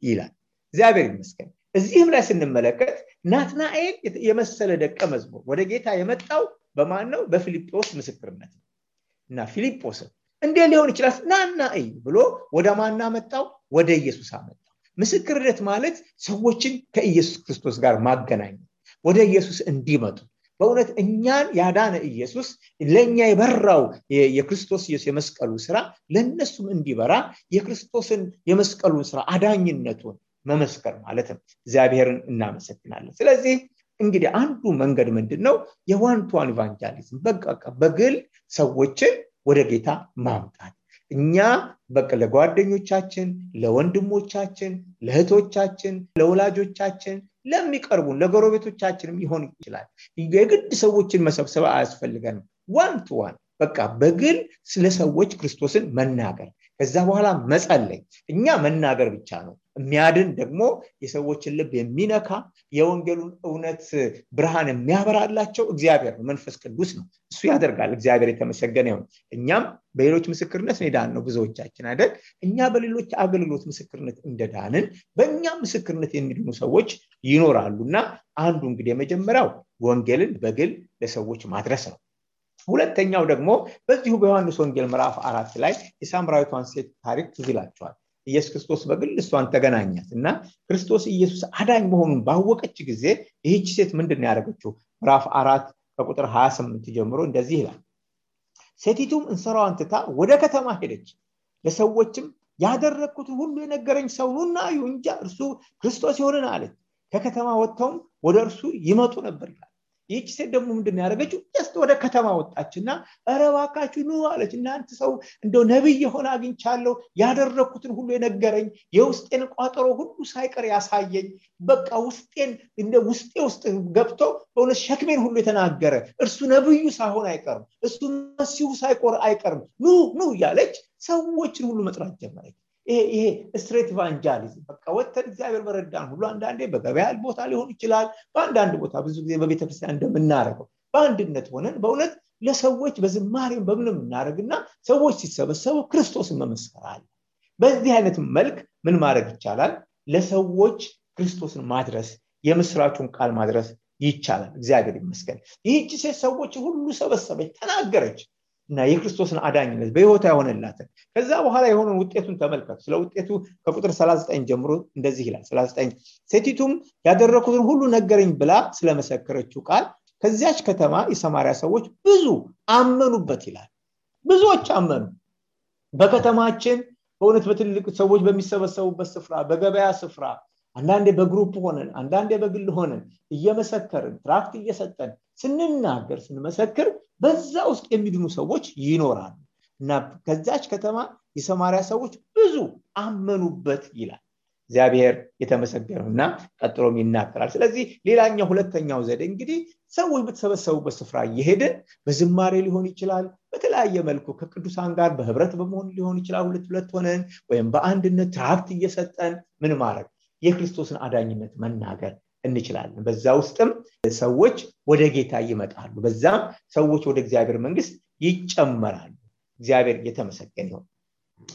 ይላል እግዚአብሔር ይመስገን እዚህም ላይ ስንመለከት ናትናኤል የመሰለ ደቀ መዝሙር ወደ ጌታ የመጣው በማን ነው በፊልጶስ ምስክርነት እና ፊልጶስ እንዴ ሊሆን ይችላል ናናይ ብሎ ወደ ማና መጣው ወደ ኢየሱስ አመጣው ምስክርነት ማለት ሰዎችን ከኢየሱስ ክርስቶስ ጋር ማገናኘት ወደ ኢየሱስ እንዲመጡ በእውነት እኛን ያዳነ ኢየሱስ ለኛ የበራው የክርስቶስ ኢየሱስ የመስቀሉ ስራ ለነሱም እንዲበራ የክርስቶስን የመስቀሉን ስራ አዳኝነቱን መመስከር ማለት ነው እግዚአብሔርን እናመሰግናለን ስለዚህ እንግዲህ አንዱ መንገድ ምንድነው የዋን ኢቫንጀሊዝም በቃ በግል ሰዎችን ወደ ጌታ ማምጣት እኛ በቃ ለጓደኞቻችን ለወንድሞቻችን ለእህቶቻችን ለወላጆቻችን ለሚቀርቡን ለጎረቤቶቻችንም ይሆን ይችላል የግድ ሰዎችን መሰብሰብ አያስፈልገንም ዋን በቃ በግል ስለ ሰዎች ክርስቶስን መናገር ከዛ በኋላ መጸለይ እኛ መናገር ብቻ ነው የሚያድን ደግሞ የሰዎችን ልብ የሚነካ የወንጌሉን እውነት ብርሃን የሚያበራላቸው እግዚአብሔር ነው መንፈስ ቅዱስ ነው እሱ ያደርጋል እግዚአብሔር የተመሰገነ ይሁን እኛም በሌሎች ምስክርነት ዳን ነው ብዙዎቻችን አይደል እኛ በሌሎች አገልግሎት ምስክርነት እንደዳንን በእኛ ምስክርነት የሚድኑ ሰዎች ይኖራሉና አንዱ እንግዲህ የመጀመሪያው ወንጌልን በግል ለሰዎች ማድረስ ነው ሁለተኛው ደግሞ በዚሁ በዮሐንስ ወንጌል ምዕራፍ 4 ላይ የሳምራዊቷን ሴት ታሪክ ትዝላችኋል ኢየሱስ ክርስቶስ በግል እሷን ተገናኛትና ክርስቶስ ኢየሱስ አዳኝ መሆኑን ባወቀች ጊዜ ይህች ሴት ምንድነው ያደረገችው ምዕራፍ 4 ከቁጥር 28 ጀምሮ እንደዚህ ይላል ሴቲቱም እንሰራዋን ትታ ወደ ከተማ ሄደች ለሰዎችም ያደረኩት ሁሉ የነገረኝ ሰው ነውና ይሁንጃ እርሱ ክርስቶስ ይሆናል አለች ከከተማ ወጥተው ወደ እርሱ ይመጡ ነበር ይላል ይህች ሴት ደግሞ ምንድነው ያደረገችው just ወደ ከተማ ወጣችና አረባካችሁ ነው አለች እናንተ ሰው እንደው ነብይ የሆነ አግኝቻለሁ ያደረኩትን ሁሉ የነገረኝ የውስጤን ቋጠሮ ሁሉ ሳይቀር ያሳየኝ በቃ ውስጤን እንደ ውስጥ ገብቶ በእውነት ሸክሜን ሁሉ የተናገረ እርሱ ነብዩ ሳይሆን አይቀርም እሱ መሲሁ ሳይቆር አይቀርም ኑ ያለች ሰዎችን ሁሉ መጥራት ጀመረች ይሄ ስትሬት ኢቫንጀሊዝም በቃ ወተን እግዚአብሔር በረዳን ሁሉ አንዳንዴ በገበያ ቦታ ሊሆን ይችላል በአንዳንድ ቦታ ብዙ ጊዜ በቤተክርስቲያን እንደምናረገው በአንድነት ሆነን በእውነት ለሰዎች በዝማሬም በምንም እናረግና ሰዎች ሲሰበሰቡ ክርስቶስን መመስከር አለ በዚህ አይነት መልክ ምን ማድረግ ይቻላል ለሰዎች ክርስቶስን ማድረስ የምስራቹን ቃል ማድረስ ይቻላል እግዚአብሔር ይመስገን ይህች ሴት ሰዎች ሁሉ ሰበሰበች ተናገረች እና የክርስቶስን አዳኝነት በህይወቷ ያሆነላት ከዛ በኋላ የሆነውን ውጤቱን ተመልከቱ ስለ ውጤቱ ከቁጥር 39 ጀምሮ እንደዚህ ይላል 39 ሴቲቱም ያደረኩትን ሁሉ ነገረኝ ብላ ስለመሰከረችው ቃል ከዚያች ከተማ የሰማርያ ሰዎች ብዙ አመኑበት ይላል ብዙዎች አመኑ በከተማችን በእውነት በትልቅ ሰዎች በሚሰበሰቡበት ስፍራ በገበያ ስፍራ አንዳንዴ በግሩፕ ሆነን አንዳንዴ በግል ሆነን እየመሰከርን ትራክት እየሰጠን ስንናገር ስንመሰክር በዛ ውስጥ የሚድኑ ሰዎች ይኖራሉ እና ከዛች ከተማ የሰማርያ ሰዎች ብዙ አመኑበት ይላል እግዚአብሔር የተመሰገነውና ቀጥሎም ይናገራል ስለዚህ ሌላኛው ሁለተኛው ዘዴ እንግዲህ ሰዎች በተሰበሰቡበት ስፍራ እየሄድን በዝማሬ ሊሆን ይችላል በተለያየ መልኩ ከቅዱሳን ጋር በህብረት በመሆን ሊሆን ይችላል ሁለት ሆነን ወይም በአንድነት ትራክት እየሰጠን ምን ማድረግ የክርስቶስን አዳኝነት መናገር እንችላለን። በዛ ውስጥም ሰዎች ወደ ጌታ ይመጣሉ። በዛም ሰዎች ወደ እግዚአብሔር መንግስት ይጨመራሉ። እግዚአብሔር የተመሰገነ ይሁን።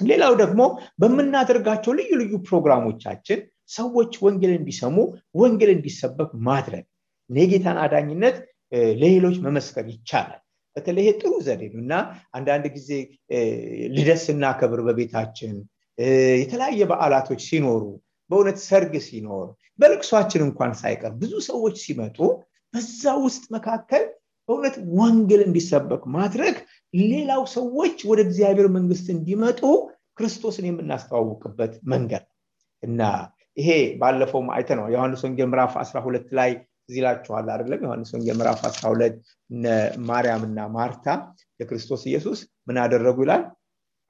ሌላው ደግሞ በመናደርጋቸው ልዩ ልዩ ፕሮግራሞቻችን ሰዎች ወንጌል እንዲሰሙ ወንጌል እንዲሰበክ ማድረግ የጌታን አዳኝነት ለሌሎች መመስከር ይቻላል። በተለይ ጥሩ ዘዴ ነውና አንዳንድ ጊዜ ልደት ስናከብር በቤታችን የተለያየ በዓላቶች ሲኖሩ በእውነት ሰርግ ሲኖር በልቅሷችን እንኳን ሳይቀር ብዙ ሰዎች ሲመጡ በዛ ውስጥ መካከል በእውነት ወንጌል እንዲሰበክ ማድረግ ሌላው ሰዎች ወደ እግዚአብሔር መንግስት እንዲመጡ ክርስቶስን የምናስተዋውቅበት መንገድ እና ይሄ ባለፈው አይተነው ዮሐንስ ወንጌል ምዕራፍ 12 ላይ ዝላችኋል አይደለም? ዮሐንስ ወንጌል ምዕራፍ 12 ማርያምና ማርታ ለክርስቶስ ኢየሱስ ምን አደረጉ ይላል?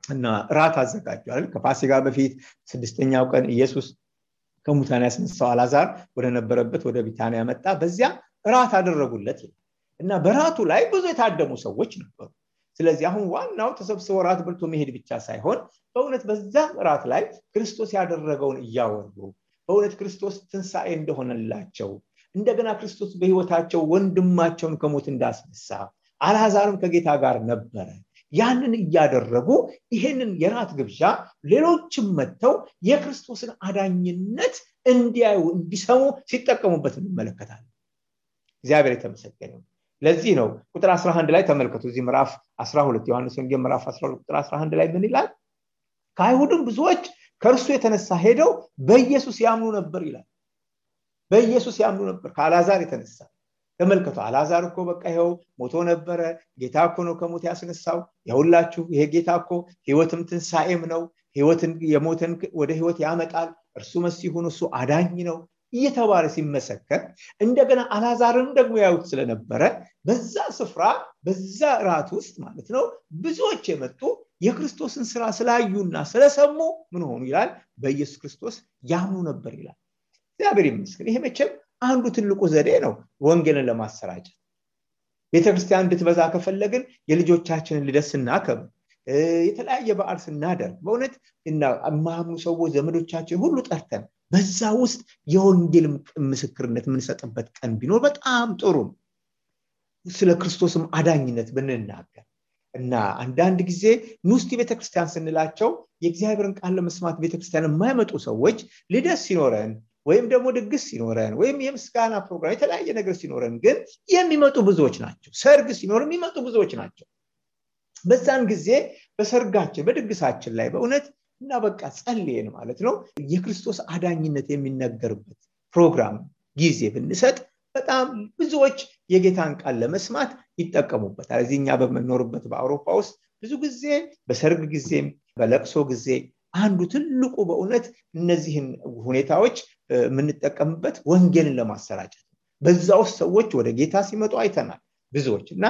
እና ራት አዘጋጁ አይደል? ከፋሲካ በፊት 6ኛው ቀን ኢየሱስ ከሙታን ያስነሳው አልዓዛር ወደ ነበረበት ወደ ቢታንያ መጣ። በዚያ ራት አደረጉለት እና በራቱ ላይ ብዙ የታደሙ ሰዎች ነበሩ። ስለዚህ አሁን ዋናው ተሰብስበው ራት በልቶ መሄድ ብቻ ሳይሆን በእውነት በዛ ራት ላይ ክርስቶስ ያደረገውን እያወሩ በእውነት ክርስቶስ ትንሣኤ እንደሆነላቸው እንደገና ክርስቶስ በህይወታቸው ወንድማቸውን ከሞት እንዳስነሳ አልዓዛርም ከጌታ ጋር ነበረ ያንን እያደረጉ ይሄንን የራት ግብዣ ሌሎችም መተው የክርስቶስን አዳኝነት እንዲያዩ እንዲሰሙ ሲጠቀሙበት እንመለከታለን። እግዚአብሔር የተመሰገነ ይሁን። ለዚህ ነው ቁጥር 11 ላይ ተመልከቱ። እዚህ ምዕራፍ 12 ዮሐንስ ወንጌል ምዕራፍ 12 ቁጥር 11 ላይ ምን ይላል? ከአይሁድም ብዙዎች ከእርሱ የተነሳ ሄደው በኢየሱስ ያምኑ ነበር ይላል። በኢየሱስ ያምኑ ነበር ከአልዓዛር የተነሳ። ተመልከቱ፣ አልዓዛር እኮ በቃ ይሄው ሞቶ ነበረ፣ ጌታ እኮ ነው ከሞት ያስነሳው። ይሁላችሁ ይሄ ጌታ እኮ ህይወትም ትንሣኤም ነው፣ ህይወትን የሞተን ወደ ህይወት ያመጣል፣ እርሱ መሲሁ ነው፣ እሱ አዳኝ ነው እየተባለ ሲመሰከር እንደገና አልዓዛርን ደግሞ ያዩት ስለነበረ በዛ ስፍራ በዛ ራት ውስጥ ማለት ነው ብዙዎች የመጡ የክርስቶስን ስራ ስላዩና ስለሰሙ ምን ሆኑ ይላል? በኢየሱስ ክርስቶስ ያምኑ ነበር ይላል። እግዚአብሔር ይመስገን። ይሄ መቼም አንዱ ትልቁ ዘዴ ነው ወንጌልን ለማሰራጨት። ቤተክርስቲያን እንድትበዛ ከፈለግን የልጆቻችንን ልደት ስናከብር የተለያየ በዓል ስናደርግ በእውነት እና ማምኑ ሰዎች ዘመዶቻችን ሁሉ ጠርተን በዛ ውስጥ የወንጌል ምስክርነት የምንሰጥበት ቀን ቢኖር በጣም ጥሩ ነው። ስለ ክርስቶስም አዳኝነት ብንናገር እና አንዳንድ ጊዜ ንስቲ ቤተክርስቲያን ስንላቸው የእግዚአብሔርን ቃል ለመስማት ቤተክርስቲያን የማይመጡ ሰዎች ልደት ሲኖረን ወይም ደግሞ ድግስ ሲኖረን ወይም የምስጋና ፕሮግራም የተለያየ ነገር ሲኖረን ግን የሚመጡ ብዙዎች ናቸው። ሰርግ ሲኖር የሚመጡ ብዙዎች ናቸው። በዛን ጊዜ በሰርጋችን በድግሳችን ላይ በእውነት እና በቃ ጸልየን ማለት ነው የክርስቶስ አዳኝነት የሚነገርበት ፕሮግራም ጊዜ ብንሰጥ በጣም ብዙዎች የጌታን ቃል ለመስማት ይጠቀሙበታል። እዚህኛ በመኖርበት በአውሮፓ ውስጥ ብዙ ጊዜ በሰርግ ጊዜም በለቅሶ ጊዜ አንዱ ትልቁ በእውነት እነዚህን ሁኔታዎች የምንጠቀምበት ወንጌልን ለማሰራጨት በዛ ውስጥ ሰዎች ወደ ጌታ ሲመጡ አይተናል ብዙዎች እና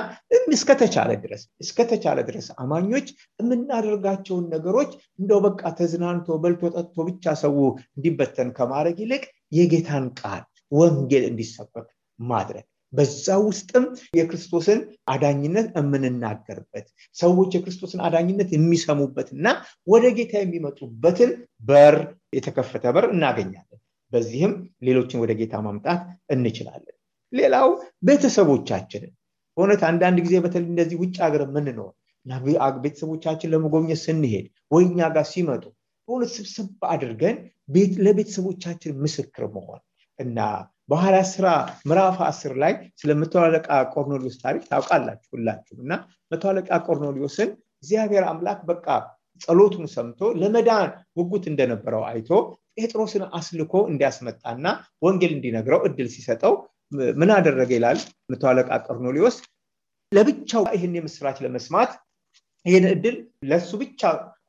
እስከተቻለ ድረስ አማኞች የምናደርጋቸውን ነገሮች እንደው በቃ ተዝናንቶ በልቶ ጠጥቶ ብቻ ሰው እንዲበተን ከማድረግ ይልቅ የጌታን ቃል ወንጌል እንዲሰበክ ማድረግ በዛ ውስጥም የክርስቶስን አዳኝነት የምንናገርበት ሰዎች የክርስቶስን አዳኝነት የሚሰሙበትና ወደ ጌታ የሚመጡበትን በር የተከፈተ በር እናገኛለን። በዚህም ሌሎችን ወደ ጌታ ማምጣት እንችላለን። ሌላው ቤተሰቦቻችንን በእውነት አንዳንድ ጊዜ በተለይ እንደዚህ ውጭ ሀገር የምንኖር እና ቤተሰቦቻችን ለመጎብኘት ስንሄድ ወይኛ ጋር ሲመጡ በእውነት ስብስብ አድርገን ለቤተሰቦቻችን ምስክር መሆን እና በሐዋርያት ሥራ ምዕራፍ 10 ላይ ስለ መቶ አለቃ ቆርኔሌዎስ ታሪክ ታውቃላችሁ ሁላችሁም። እና መቶ አለቃ ቆርኔሌዎስን እግዚአብሔር አምላክ በቃ ጸሎቱን ሰምቶ ለመዳን ጉጉት እንደነበረው አይቶ ጴጥሮስን አስልኮ እንዲያስመጣና ወንጌል እንዲነግረው እድል ሲሰጠው ምን አደረገ ይላል? መቶ አለቃ ቆርኔሌዎስ ለብቻው ይሄን የምስራች ለመስማት ይሄን እድል ለሱ ብቻ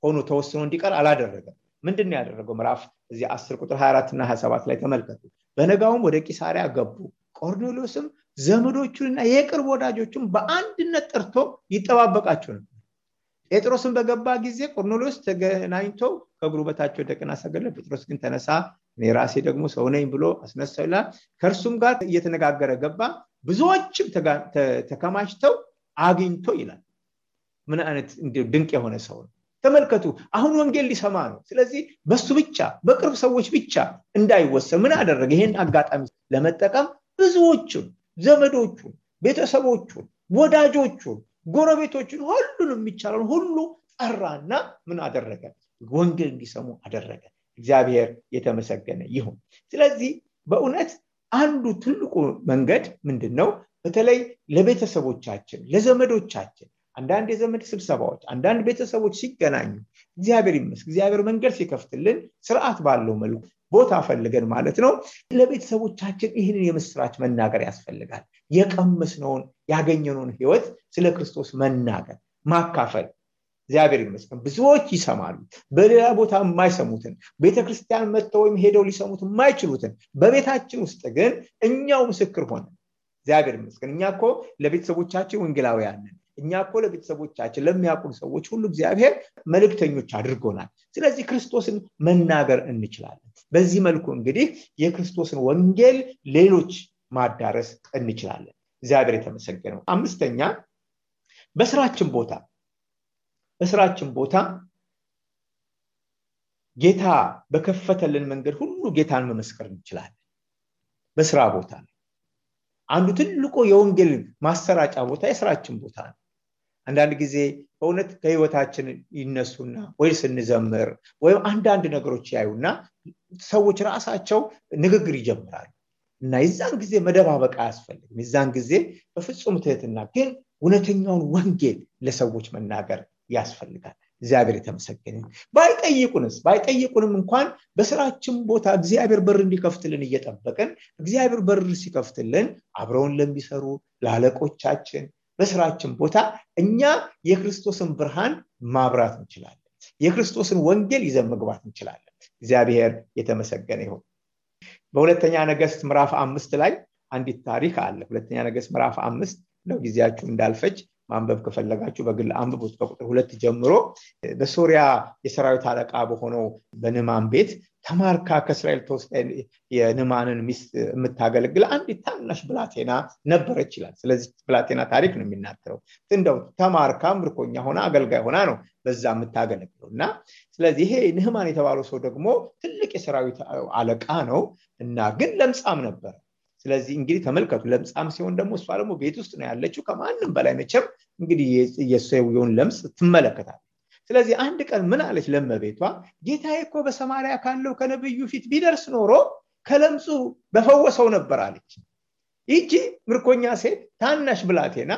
ሆኖ ተወስኖ እንዲቀር አላደረገም። ምንድነው ያደረገው? ምዕራፍ እዚህ 10 ቁጥር 24 እና 27 ላይ ተመልከቱ። በነጋውም ወደ ቂሳሪያ ገቡ። ቆርኔሌዎስም ዘመዶቹንና የቅርብ ወዳጆቹን በአንድነት ጠርቶ ይጠባበቃቸው ነበር። ጴጥሮስን በገባ ጊዜ ቆርኔሌዎስ ተገናኝቶ ከእግሩ በታች ወደቀና ሰገደ። ጴጥሮስ ግን ተነሳ፣ እኔ ራሴ ደግሞ ሰው ነኝ ብሎ አስነሳው ይላል። ከእርሱም ጋር እየተነጋገረ ገባ፣ ብዙዎችም ተከማችተው አግኝቶ ይላል። ምን አይነት ድንቅ የሆነ ሰው ነው! ተመልከቱ አሁን ወንጌል ሊሰማ ነው ስለዚህ በሱ ብቻ በቅርብ ሰዎች ብቻ እንዳይወሰን ምን አደረገ ይሄን አጋጣሚ ለመጠቀም ብዙዎቹን ዘመዶቹን ቤተሰቦቹን ወዳጆቹን ጎረቤቶቹን ሁሉንም የሚቻለው ሁሉ ጠራና ምን አደረገ ወንጌል እንዲሰሙ አደረገ እግዚአብሔር የተመሰገነ ይሁን ስለዚህ በእውነት አንዱ ትልቁ መንገድ ምንድነው በተለይ ለቤተሰቦቻችን ለዘመዶቻችን አንዳንድ የዘመድ ስብሰባዎች አንዳንድ ቤተሰቦች ሲገናኙ እግዚአብሔር ይመስገን እግዚአብሔር መንገድ ሲከፍትልን ስርዓት ባለው መልኩ ቦታ ፈልገን ማለት ነው ለቤተሰቦቻችን ይህንን የምስራች መናገር ያስፈልጋል የቀመስነውን ያገኘነውን ህይወት ስለ ክርስቶስ መናገር ማካፈል እግዚአብሔር ይመስገን ብዙዎች ይሰማሉ በሌላ ቦታ የማይሰሙትን ቤተክርስቲያን መጥተው ወይም ሄደው ሊሰሙት የማይችሉትን በቤታችን ውስጥ ግን እኛው ምስክር ሆነ እግዚአብሔር ይመስገን እኛኮ ለቤተሰቦቻችን ወንጌላውያን ነን እኛኮ ለቤተሰቦቻችን ለሚያውቁን ሰዎች ሁሉ እግዚአብሔር መልእክተኞች አድርጎናል ስለዚህ ክርስቶስን መናገር እንችላለን በዚህ መልኩ እንግዲህ የክርስቶስን ወንጌል ሌሎች ማዳረስ እንችላለን እግዚአብሔር የተመሰገነው አምስተኛ በስራችን ቦታ ጌታ በከፈተልን መንገድ ሁሉ ጌታን መመስከር እንችላለን በስራ ቦታ አንዱ ትልቁ የወንጌል ማሰራጫ ቦታ የስራችን ቦታ ነው አንዳንድ ጊዜ በእውነት ከህይወታችን ይነሱና ወይ ስንዘምር ወይ አንዳንድ ነገሮች ያዩና ሰዎች ራሳቸው ንግግር ይጀምራሉ እና የዛን ጊዜ መደባበቅ አያስፈልግም የዛን ጊዜ በፍጹም ትህትና ግን እውነተኛውን ወንጌል ለሰዎች መናገር ያስፈልጋል እግዚአብሔር የተመሰገነ ባይጠይቁንም እንኳን በስራችን ቦታ እግዚአብሔር በር እንዲከፍትልን እየጠበቀን እግዚአብሔር በር ሲከፍትልን አብረውን ለሚሰሩ ለአለቆቻችን በስራችን ቦታ እኛ የክርስቶስን ብርሃን ማብራት እንችላለን የክርስቶስን ወንጌል ይዘን መግባት እንችላለን እግዚአብሔር የተመሰገነ ይሁን በሁለተኛ ነገሥት ምዕራፍ 5 ላይ አንዲት ታሪክ አለ ሁለተኛ ነገሥት ምዕራፍ 5 ነው ጊዜያችሁ እንዳልፈጅ ማንበብ ከፈለጋችሁ በግል አንብቡት ከቁጥር 2 ጀምሮ በሶሪያ የሰራዊት አለቃ በሆነው በንማን ቤት ተማርካ ከእስራኤል ተወስዳ የንማንን ሚስት የምታገለግል አንዲት ታናሽ ብላቴና ነበረች ይላል ስለዚህ ብላቴና ታሪክ ነው የሚናገረው እንደው ተማርካ ምርኮኛ ሆና አገልጋይ ሆና ነው በዛ የምታገለግለውና ስለዚህ ይሄ ንህማን የተባለው ሰው ደግሞ ትልቅ የሰራዊት አለቃ ነው እና ግን ለምጻም ነበር ስለዚህ እንግዲህ ተመልከቱ ለምጻም ሲሆን ደግሞ እሷ ደግሞ ቤት ውስጥ ነው ያለችው ከማንም በላይ መቼም እንግዲህ የሰውየውን ለምጽ ትመለከታለች ስለዚህ አንድ ቀን ምን አለች ለመቤቷ ጌታዬ እኮ በሰማርያ ካለው ከነብዩ ፊት ቢደርስ ኖሮ ከለምጹ በፈወሰው ነበር አለች ይቺ ምርኮኛ ሴት ታናሽ ብላቴና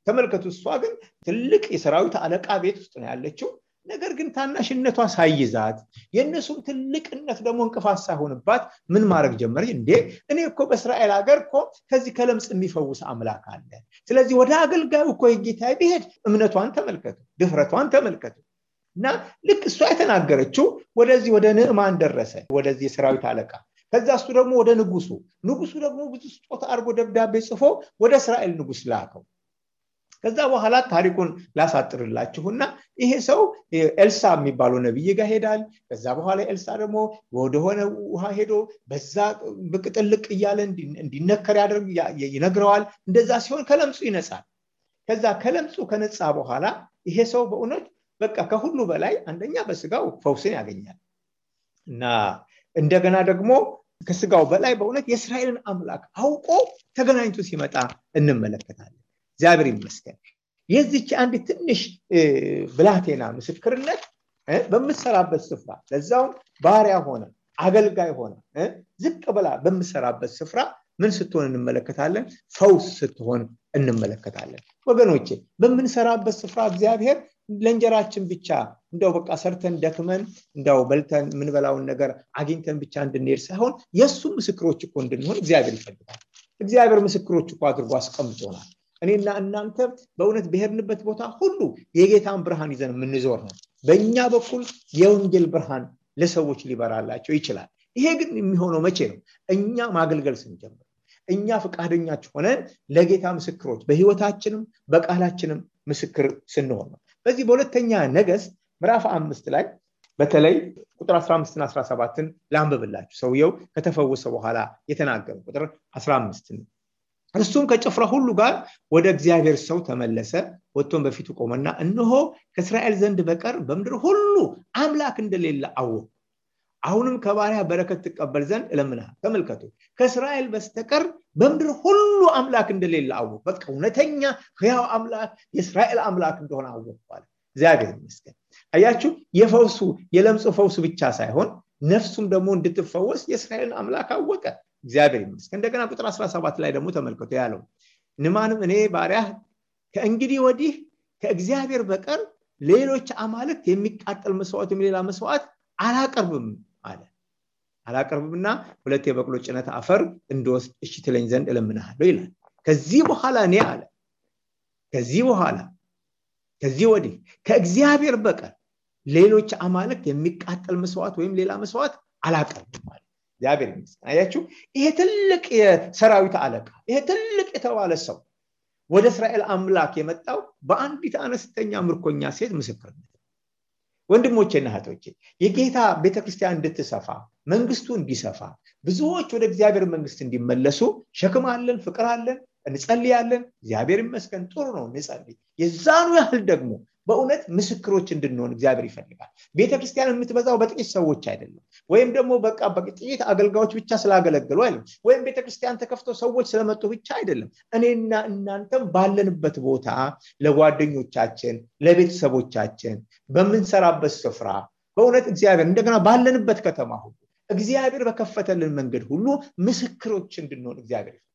ተመልከቱ እሷ ግን ትልቅ የሰራዊት አለቃ ቤት ውስጥ ነው ያለችው ነገር ግን ታናሽነቷ ሳይዛት የነሱም ትልቅነት ደግሞ እንቅፋት ሳይሆንባት ምን ማድረግ ጀመረች እንዴ እኔ እኮ በእስራኤል ሀገር እኮ ከዚህ ከለምጽ የሚፈውስ አምላክ አለ ስለዚህ ወደ አገልጋዩ እኮ የጌታዬ ቢሄድ እምነቷን ተመልከቱ ድፍረቷን ተመልከቱ እና ልክ እሷ የተናገረችው ወደዚህ ወደ ንዕማን ደረሰ ወደዚህ የሰራዊት አለቃ ከዛ እሱ ደግሞ ወደ ንጉሱ ደግሞ ብዙ ስጦታ አርጎ ደብዳቤ ጽፎ ወደ እስራኤል ንጉስ ላከው ከዛ በኋላ ታሪኩን ላሳጥርላችሁና ይሄ ሰው ኤልሳ የሚባለው ነብይ ጋር ሄዳል ከዛ በኋላ ኤልሳ ደግሞ ወደሆነ ውሃ ሄዶ በዛ በቅጥልቅ እያለ እንዲነከር ይነግረዋል እንደዛ ሲሆን ከለምጹ ይነጻል ከዛ ከለምጹ ከነጻ በኋላ ይሄ ሰው በእውነት በቃ ከሁሉ በላይ አንደኛ በስጋው ፈውስን ያገኛል እና እንደገና ደግሞ ከስጋው በላይ በእውነት የእስራኤልን አምላክ አውቆ ተገናኝቶ ሲመጣ እንመለከታለን እግዚአብሔር ይመስገን የዚች አንድ ትንሽ ብላቴና ምስክርነት በመሰራበት ስፍራ ለዛው ባሪያ ሆነ አገልጋይ ሆነ ዝቅ ብላ በመሰራበት ስፍራ ምን ስትሆን እንመለከታለን ፈውስ ስትሆን እንመለከታለን ወገኖቼ በመንሰራበት ስፍራ እግዚአብሔር ለእንጀራችን ብቻ እንደው በቃ ሰርተን ደክመን እንደው በልተን ምን በላውን ነገር አግኝተን ብቻ እንድንሄድ ሳይሆን የሱ ምስክሮች እኮ እንድንሆን እግዚአብሔር ይፈልጋል እግዚአብሔር ምስክሮች እኮ አድርጎ አስቀምጦናል እኔና እናንተ በእውነት በሄድንበት ቦታ ሁሉ የጌታን ብርሃን ይዘን የምንዞር ነው በእኛ በኩል የወንጌል ብርሃን ለሰዎች ሊበራላቸው ይችላል ይሄ ግን የሚሆነው መቼ ነው እኛ ማገልገል ስንጀምር እኛ ፈቃደኞች ሆነን ለጌታ ምስክሮች በህይወታችንም በቃላችንም ምስክር ስንሆን ነው በዚህ በሁለተኛ ነገሥት ምዕራፍ 5 ላይ በተለይ ቁጥር 15 እና 17ን ላንብብላችሁ ሰውየው ከተፈወሰ በኋላ የተናገረው ቁጥር 15 እርሱም ከጭፍራ ሁሉ ጋር ወደ እግዚአብሔር ሰው ተመለሰ። ወጥቶም በፊቱ ቆመና እነሆ ከእስራኤል ዘንድ በቀር በምድር ሁሉ አምላክ እንደሌለ አወቅሁ። አሁንም ከባሪያ በረከት ተቀበል ዘንድ እለምንሃለሁ። ተመልከቱ፣ ከእስራኤል በስተቀር በምድር ሁሉ አምላክ እንደሌለ አወቅሁ። በቃ እውነተኛ ሕያው አምላክ የእስራኤል አምላክ እንደሆነ አወቅሁ አለ። እግዚአብሔር ይመስገን። አያችሁ፣ የፈውሱ የለምጹ ፈውሱ ብቻ ሳይሆን ነፍሱም ደግሞ እንድትፈወስ የእስራኤልን አምላክ አወቀ። እግዚአብሔር ይመስገን። እንደገና ቁጥር 17 ላይ ደግሞ ተመልከቱ ያለው ንዕማንም እኔ ባሪያ ከእንግዲህ ወዲህ ከእግዚአብሔር በቀር ሌሎች አማልክት የሚቃጠል መስዋዕት ሌላ መስዋዕት አላቀርብም አለ። አላቀርብምና 2 የበቅሎ ጭነት አፈር እንድወስድ እሺ ትለኝ ዘንድ እለምንሃለሁ ይላል። ከዚህ በኋላ እኔ አለ ከዚህ ወዲህ ከእግዚአብሔር በቀር ሌሎች አማልክት የሚቃጠል መስዋዕት ወይም ሌላ መስዋዕት አላቀርብም አለ። እግዚአብሔር ይመስገን። አያችሁ፣ ይሄ ትልቅ የሰራዊት አለቃ፣ ይሄ ትልቅ የተባለ ሰው ወደ እስራኤል አምላክ የመጣው በአንዲት አነስተኛ ምርኮኛ ሴት ምስክርነት። ወንድሞቼና እህቶቼ፣ የጌታ ቤተክርስቲያን እንድትሰፋ መንግስቱ እንዲሰፋ ብዙዎች ወደ እግዚአብሔር መንግስት እንዲመለሱ ሸክም አለን፣ ፍቅር አለን፣ እንጸልያለን። እግዚአብሔር ይመስገን፣ ጥሩ ነው እንጸልይ። የዛኑ ያህል ደግሞ በእውነት ምስክሮች እንድንሆን እግዚአብሔር ይፈልጋል። ቤተክርስቲያን የምትበዛው በጥቂት ሰዎች አይደለም፣ ወይም ደግሞ በቃ በጥቂት አገልጋዮች ብቻ ስላገለገሉ አይደለም፣ ወይም ቤተክርስቲያን ተከፍቶ ሰዎች ስለመጡ ብቻ አይደለም። እኔና እናንተም ባለንበት ቦታ ለጓደኞቻችን፣ ለቤተሰቦቻችን፣ በመንሰራበት ስፍራ በእውነት እግዚአብሔር እንደገና ባለንበት ከተማ ሁሉ እግዚአብሔር በከፈተልን መንገድ ሁሉ ምስክሮች እንድንሆን እግዚአብሔር ይፈልጋል።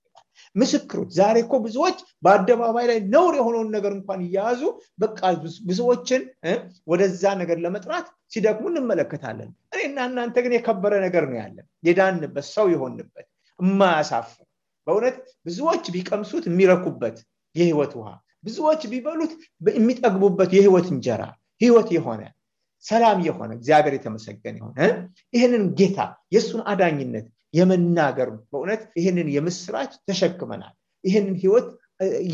ምስክሮች ዛሬ እኮ ብዙዎች በአደባባይ ላይ ነውር የሆነውን ነገር እንኳን ይያዙ በቃ ብዙዎችን ወደዛ ነገር ለመጥራት ሲደክሙ እንመለከታለን። እኔና እናንተ ግን የከበረ ነገር ነው ያለን፣ የዳንበት ሰው የሆንበት የማያሳፍር በእውነት ብዙዎች ቢቀምሱት የሚረኩበት የህይወት ውሃ፣ ብዙዎች ቢበሉት የሚጠግቡበት የህይወት እንጀራ፣ ህይወት የሆነ ሰላም የሆነ እግዚአብሔር የተመሰገነ ይሁን። ይሄንን ጌታ የሱን አዳኝነት የመናገር በእውነት ይሄንን የምስራች ተሸክመናል፣ ይሄንን ህይወት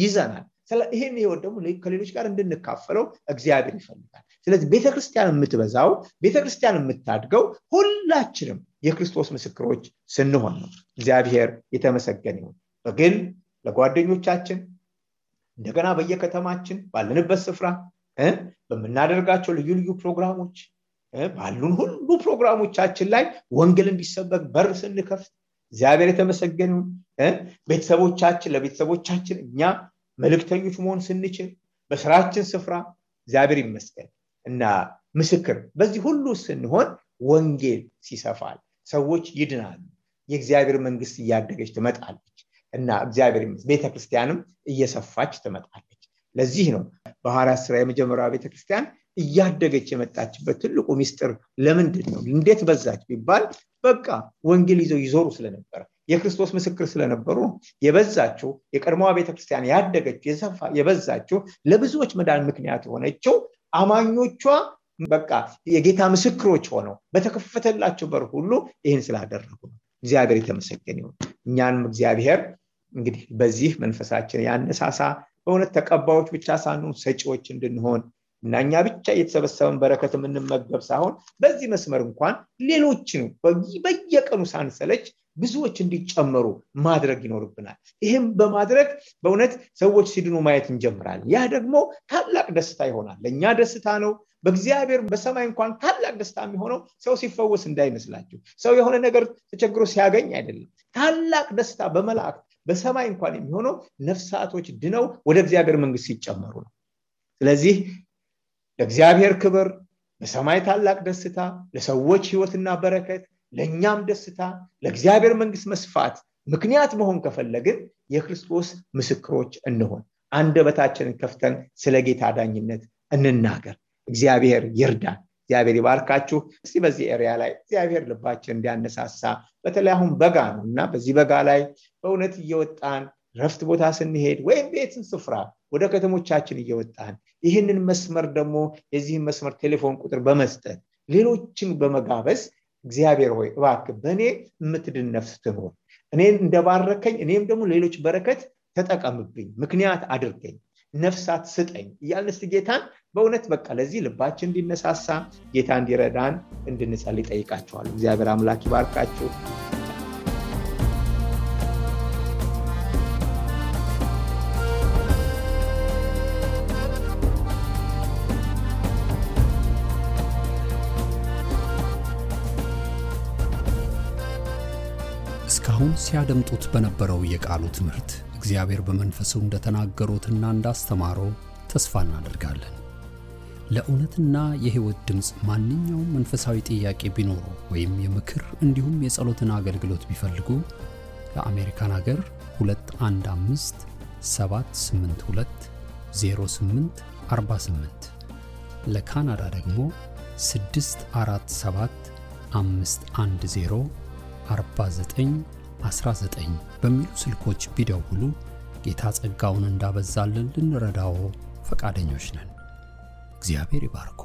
ይዘናል። ይሄን ህይወት ደግሞ ከሌሎች ጋር እንድንካፈለው እግዚአብሔር ይፈልጋል። ስለዚህ ቤተክርስቲያን የምትበዛው፣ ቤተክርስቲያን የምታድገው ሁላችንም የክርስቶስ ምስክሮች ስንሆን ነው። እግዚአብሔር የተመሰገነ ይሁን። በግል ለጓደኞቻችን፣ እንደገና በየከተማችን ባለንበት ስፍራ በመናደርጋቸው ልዩ ልዩ ፕሮግራሞች ባሉን ሁሉ ፕሮግራሞቻችን ላይ ወንጌል እንዲሰበክ በር ስንከፍት እግዚአብሔር የተመሰገነ ይሁን። ቤተሰቦቻችን ለቤተሰቦቻችን እኛ መልእክተኞች መሆን ስንችል በስራችን ስፍራ እግዚአብሔር ይመስገን እና ምስክር በዚህ ሁሉ ስንሆን ወንጌል ሲሰፋል፣ ሰዎች ይድናሉ፣ የእግዚአብሔር መንግስት እያደገች ትመጣለች እና እግዚአብሔር ይመስገን ቤተክርስቲያንም እየሰፋች ትመጣለች። ለዚህ ነው በሐዋርያት ሥራ የመጀመሪያው ቤተክርስቲያን እያደገች የመጣችበት ትልቁ ሚስጥር ለምንድን ነው? እንዴት በዛች ቢባል በቃ ወንጌል ይዘው ይዞሩ ስለነበር የክርስቶስ ምስክር ስለነበሩ የበዛችው። የቀድሞዋ ቤተክርስቲያን ያደገች የበዛችው ለብዙዎች መዳን ምክንያት ሆነችው አማኞቿ በቃ የጌታ ምስክሮች ሆነው በተከፈተላቸው በር ሁሉ ይህን ስላደረጉ ነው። እግዚአብሔር የተመሰገነ ይሁን። እኛንም እግዚአብሔር እንግዲህ በዚህ መንፈሳችን ያነሳሳ፣ በእውነት ተቀባዮች ብቻ ሳንሆን ሰጪዎች እንድንሆን እና እኛ ብቻ የተሰበሰበን በረከት የምንመገብ ሳይሆን በዚህ መስመር እንኳን ሌሎችን በየቀኑ ሳንሰለች ብዙዎች እንዲጨመሩ ማድረግ ይኖርብናል። ይህም በማድረግ በእውነት ሰዎች ሲድኑ ማየት እንጀምራለን። ያ ደግሞ ታላቅ ደስታ ይሆናል። ለእኛ ደስታ ነው። በእግዚአብሔር በሰማይ እንኳን ታላቅ ደስታ የሚሆነው ሰው ሲፈወስ እንዳይመስላችሁ፣ ሰው የሆነ ነገር ተቸግሮ ሲያገኝ አይደለም። ታላቅ ደስታ በመላእክት በሰማይ እንኳን የሚሆነው ነፍሳቶች ድነው ወደ እግዚአብሔር መንግስት ሲጨመሩ ነው። ስለዚህ ለእግዚአብሔር ክብር፣ በሰማይ ታላቅ ደስታ፣ ለሰዎች ህይወትና በረከት፣ ለኛም ደስታ፣ ለእግዚአብሔር መንግስት መስፋት ምክንያት መሆን ከፈለግን የክርስቶስ ምስክሮች እንሆን። አንደበታችንን ከፍተን ስለ ጌታ ዳኝነት እንናገር። እግዚአብሔር ይርዳን። እግዚአብሔር ይባርካችሁ። እስቲ በዚህ ኤሪያ ላይ እግዚአብሔር ልባችን እንዲያነሳሳ፣ በተለይ አሁን በጋ ነውና በዚህ በጋ ላይ በእውነት እየወጣን ረፍት ቦታ ስንሄድ ወይም ቤትን ስፍራ ወደ ከተሞቻችን እየወጣን ይህንን መስመር ደግሞ የዚህን መስመር ቴሌፎን ቁጥር በመስጠት ሌሎችን በመጋበዝ እግዚአብሔር ሆይ እባክህ በእኔ የምትድን ነፍስ ትኖር፣ እኔን እንደባረከኝ እኔም ደግሞ ሌሎች በረከት ተጠቀምብኝ፣ ምክንያት አድርገኝ፣ ነፍሳት ስጠኝ እያልን እስቲ ጌታን በእውነት በቃ ለዚህ ልባችን እንዲነሳሳ ጌታ እንዲረዳን እንድንጸልይ ጠይቃችኋለሁ። እግዚአብሔር አምላክ ይባርካችሁ። አሁን ሲያደምጡት በነበረው የቃሉ ትምህርት እግዚአብሔር በመንፈሱ እንደተናገሩትና እንዳስተማረው ተስፋ እናደርጋለን። ለእውነትና የሕይወት ድምጽ ማንኛውም መንፈሳዊ ጥያቄ ቢኖሩ ወይም የምክር እንዲሁም የጸሎትን አገልግሎት ቢፈልጉ ለአሜሪካን ሀገር 215 782 0848 ለካናዳ ደግሞ 647 510 4919 በሚሉ ስልኮች ቢደውሉ ጌታ ጸጋውን እንዳበዛልን ልንረዳው ፈቃደኞች ነን። እግዚአብሔር ይባርኮ።